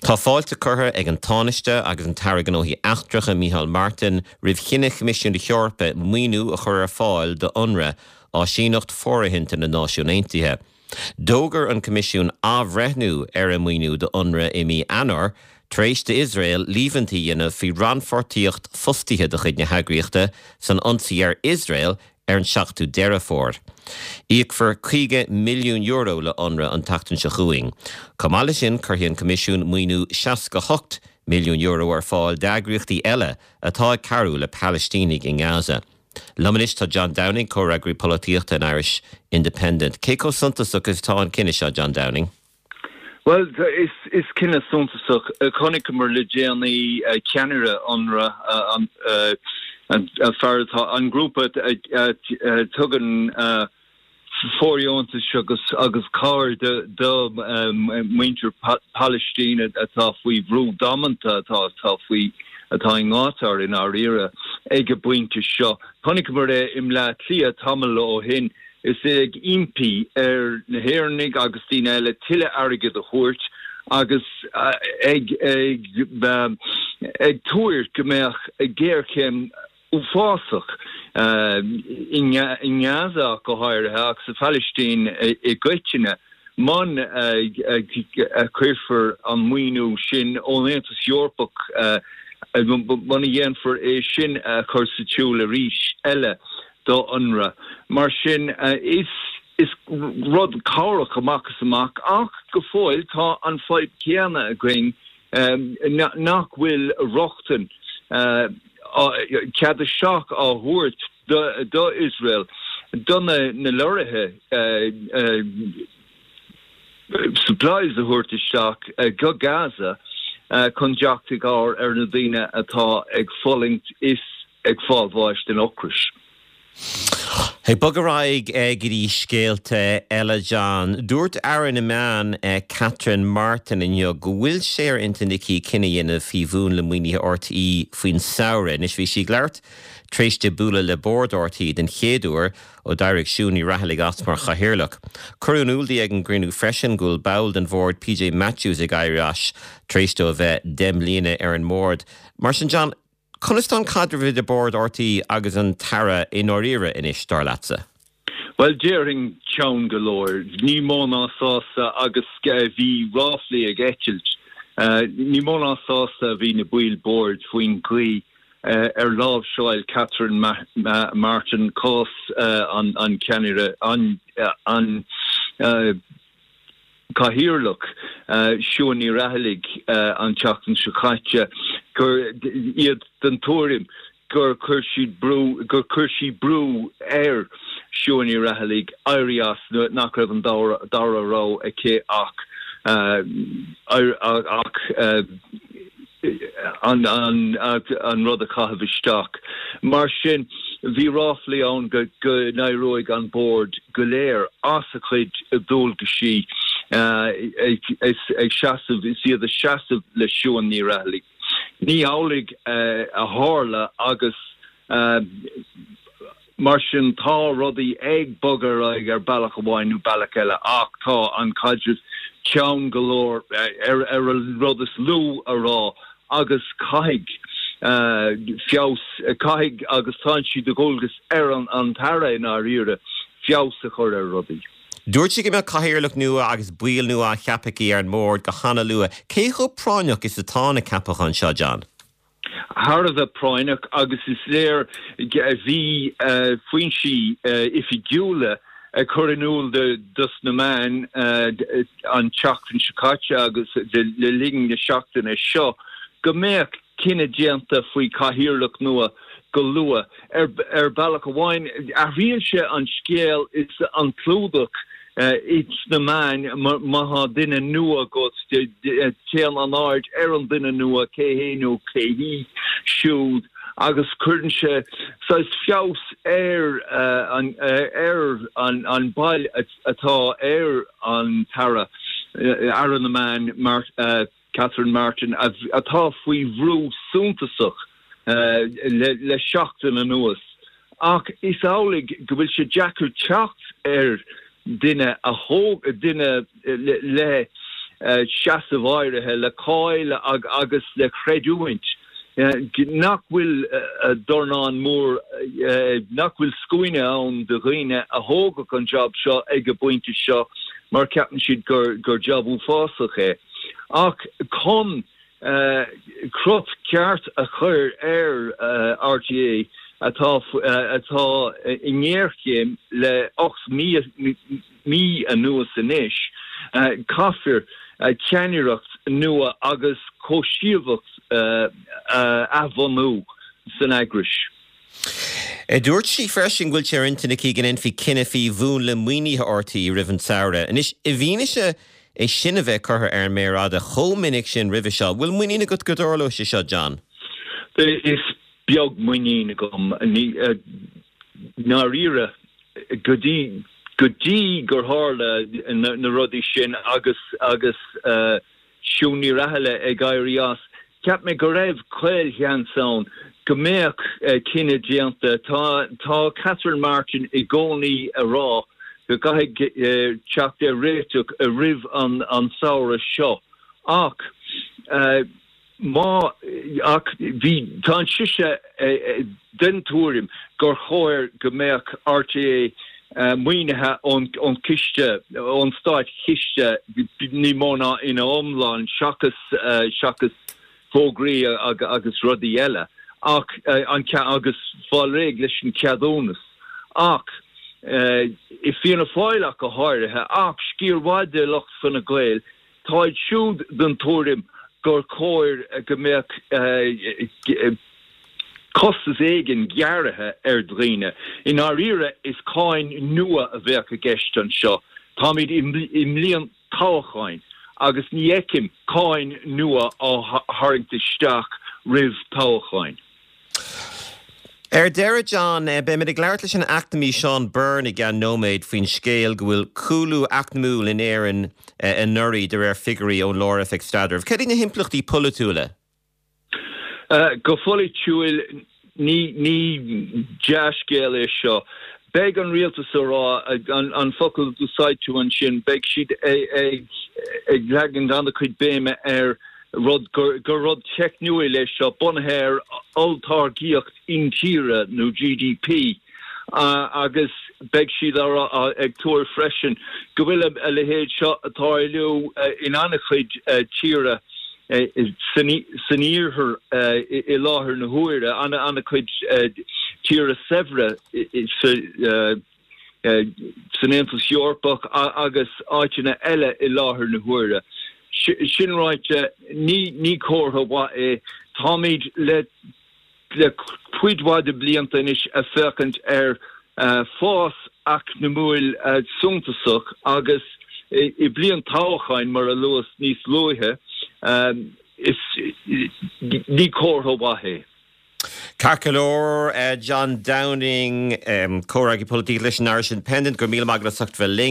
Tá fáilte curtha ag an Tánaiste agus an tAire Gnóthaí Eachtracha Micheál Martin roimh chinneadh Choimisiún na hEorpa maoiniú a chur ar fáil do Unrwa, áisíneacht fóirithinte na Náisiún Aontaithe. D'fhógair an Coimisiún athbhreithniú ar a maoiniú do Unrwa i mí Eanáir, tar éis d'Iosrael líomhaintí a dhéanamh faoi rannpháirtíocht fostaithe de chuid na heagraíochta san ionsaí ar Iosrael ar an 7ú Deireadh Fómhair. Íocfar €50 milliún le Unrwa an tseachtain seo chugainn. Chomh maith leis sin, cuirfidh an Coimisiún maoiniú €68 milliún ar fáil d'eagraíochtaí eile atá ag cabhrú le Palaistínigh i nGaza. Liom anois tá John Downing, Comhfhreagraí Polaitíochta an Irish Independent. Cé chomh suntasach is atá an cinneadh seo, John Downing? Bhuel, is cinneadh suntasach. Chonaiceamar le déanaí ceannaire Unrwa, an fear atá, an grúpa a tugann fóirdheontais agus cabhair do mhuintir Palaistín atá faoi bhrú damanta, atá faoi, atá i ngátar i ndáiríre ag an bpointe seo. Chonaiceamar é i mBleá Cliath tamall ó shin. Is é ag impí ar na hÉireannaigh agus daoine eile tuilleadh airgid a thabhairt agus ag ag tuar go mbeadh géarchéim uafásach i nGaza ach go háirithe ach sa Phalaistín i gcoitinne muna cuirfear an maoiniú sin ón Aontas Eorpach muna dhéanfar é sin a chur sa tsiúl arís eile. do Unrwa. Mar sin, is is rud cabhrach amach is amach ach go fóill tá an fadhb chéanna againn nach bhfuil rochtain, cead isteach á thabhairt do Iosrael do na lorraithe supplies a thabhairt isteach go Gaza chun teacht i gcabhair ar na daoine atá ag fulaingt is ag fáil bháis den ocras. Ag bogadh ar aghaidh go dtí scéalta eile, John. Dúirt Aire na Meán, Catherine Martin inniu go bhfuil sé ar intinn aici cinneadh a dhéanamh faoi mhúnla maoinithe RTÉ faoin samhradh. Anois bhí sí ag labhairt tar éis di bualadh le bord RTÉ den chéad uair ó d'éirigh Siún Ní Raghallaigh as mar chathaoirleach. Cuireadh in iúl di ag an gcruinniú freisin go bhfuil ball den bhord, PJ Matthews, ag éirí as tar éis dó a bheith 10 mbliana ar an mbord. Mar sin, John, Conas tá an caidreamh idir Bord RTÉ agus an tAire i ndáiríre anois, dar leatsa? Bhuel, déarfainn teann go leor. Ní mó ná sásta agus bhí ráflaí ag eitilt. Ní mó ná sásta a bhí na baill boird faoin gcaoi ar láimhseáil Catherine Martin cás an cheannaire, an Cathaoirleach, Siún Ní Raghallaigh an tseachtain seo caite, gur iad den tuairim gur chuir siad brú, gur chuir sí brú ar Siún Ní Raghallaigh éirí as nuair nach raibh an dara rogha aici ach ach an rud a chaitheamh isteach. Mar sin, bhí ráflaí ann go n-éireoidh an Bord go léir as a chuid dualgaisí ag seasamh, is iad ag seasamh le Siún Ní Raghallaigh. Ní hamhlaidh a tharla agus Mar sin, tá rudaí ag bogadh ar aghaidh ar bealach amháin nó bealach eile ach tá an caidreamh teann go leor, ar an rud is lú a rá, agus caithfidh feabhas, caithfidh agus tá sé de dhualgas ar an tAire i ndáiríre feabhas a chur ar rudaí. Dúirt sí go mbeadh cathaoirleach nua agus baill nua á cheapadh aici ar an mbord go hana-luath. Cé chomh práinneach is atá na ceapacháin seo, John? thar a bheith práinneach agus is léir bhí foinsí oifigiúla ag cur in iúl dos na meáin an tseachtain seo caite agus le linn na seachtaine seo go mbeadh cinneadh déanta faoi chathaoirleach nua go luath. Ar bealach amháin athraíonn sé an scéal is an clúdach ins na meáin má tá duine nua agat, téann an aird ar an duine nua, cé hé nó cé hí siúd, agus cuireann sé saghas feabhas ar an ar an bail atá ar an tAire, Aire na Meán, Catherine Martin, atá faoi bhrú suntasach le seachtain anuas. Ach is amhlaidh go bhfuil sé deacair teacht ar duine a thóg, duine le. seasamh áirithe, le cáil agus le creidiúint, nach bhfuil dornán mór, nach bhfuil scuaine ann de dhaoine a thógfadh an jab seo ag an bpointe seo mar ceapann siad gur jab uafásach é. Ach chun crot ceart a chur ar RTÉ atá atá i ngéarchéim le 8 mí anuas anois, caithfear ceannaireacht nua agus cobhsaíocht a athbhunú san eagrais. Dúirt sí freisin go bhfuil sé ar intinn aici go ndéanfaí cinneadh faoi mhúnla maoinithe RTÉ roimh an tsamhradh. Anois, i bhfianaise é sin a bheith curtha ar an méar fhada chomh minic sin roimhe seo, bhfuil muinín agat go dtarlóidh sé seo, John? Is beag muinín agam, i ndáiríre, go dtí go dtí gur tharla na rudaí sin agus agus Siún Ní Raghallaigh ag éirí as. Cheap mé go raibh caolsheans ann go mbeadh cinneadh déanta. Tá tá Catherine Martin i gcónaí ag rá go gcaithfidh teacht ar réiteach roimh an samhradh seo ach má ach bhí tá sise den tuairim gur chóir go mbeadh RTÉ maoinithe ón chiste, ón státchiste ní mó ná ina iomlán seachas seachas fógraí agus rudaí eile ach an agus fáil réidh leis an cheadúnas. Ach i Fianna Fáil ach go háirithe, ach sciar mhaith de lucht Fine Gael, Táid siúd den tuairim gur chóir go mbeadh costas éigin gearrtha ar dhaoine. I ndáiríre, is cáin nua a bheadh i gceist anseo. Táimid i mbliain toghcháin agus ní fheicim cáin nua á tharraingt isteach roimh toghcháin. Ar deireadh, John, beimid ag labhairt leis an eacnamaí Seán Byrne i gceann nóiméid faoin scéal go bhfuil cúlú eacnamúil in Éirinn anuraidh de réir figiúirí ón Lár-Oifig Staidrimh. Cad iad na himpleachtaí polaitiúla? Go polaitiúil, ní dea-scéal é seo. Beidh an rialtas ag rá, an focal a d'úsáid tú ansin, beidh siad ag leagan an-chuid béime ar rud gur rud teicniúil é seo, bunaithe ar olltáirgíocht intíre nó GDP, agus beidh siad ag tuar freisin go bhfuil a leithéid seo ag tarlú in an-chuid tíortha san iarthar i láthair na huaire, an-chuid tíortha saibhre sa san Aontas Eorpach agus áiteanna eile i láthair na huaire. Sin ráite, ní comhartha mhaith é. Táimid le le cuid mhaith de blianta anois ag féachaint ar fás eacnamúil suntasach agus i bliain toghcháin, mar a luas níos luaithe, is ní comhartha mhaith é. Ceart go leor, John Downing, comhfhreagraí polaitíochta leis an Irish Independent, go raibh míle maith agat as ucht bheith linn.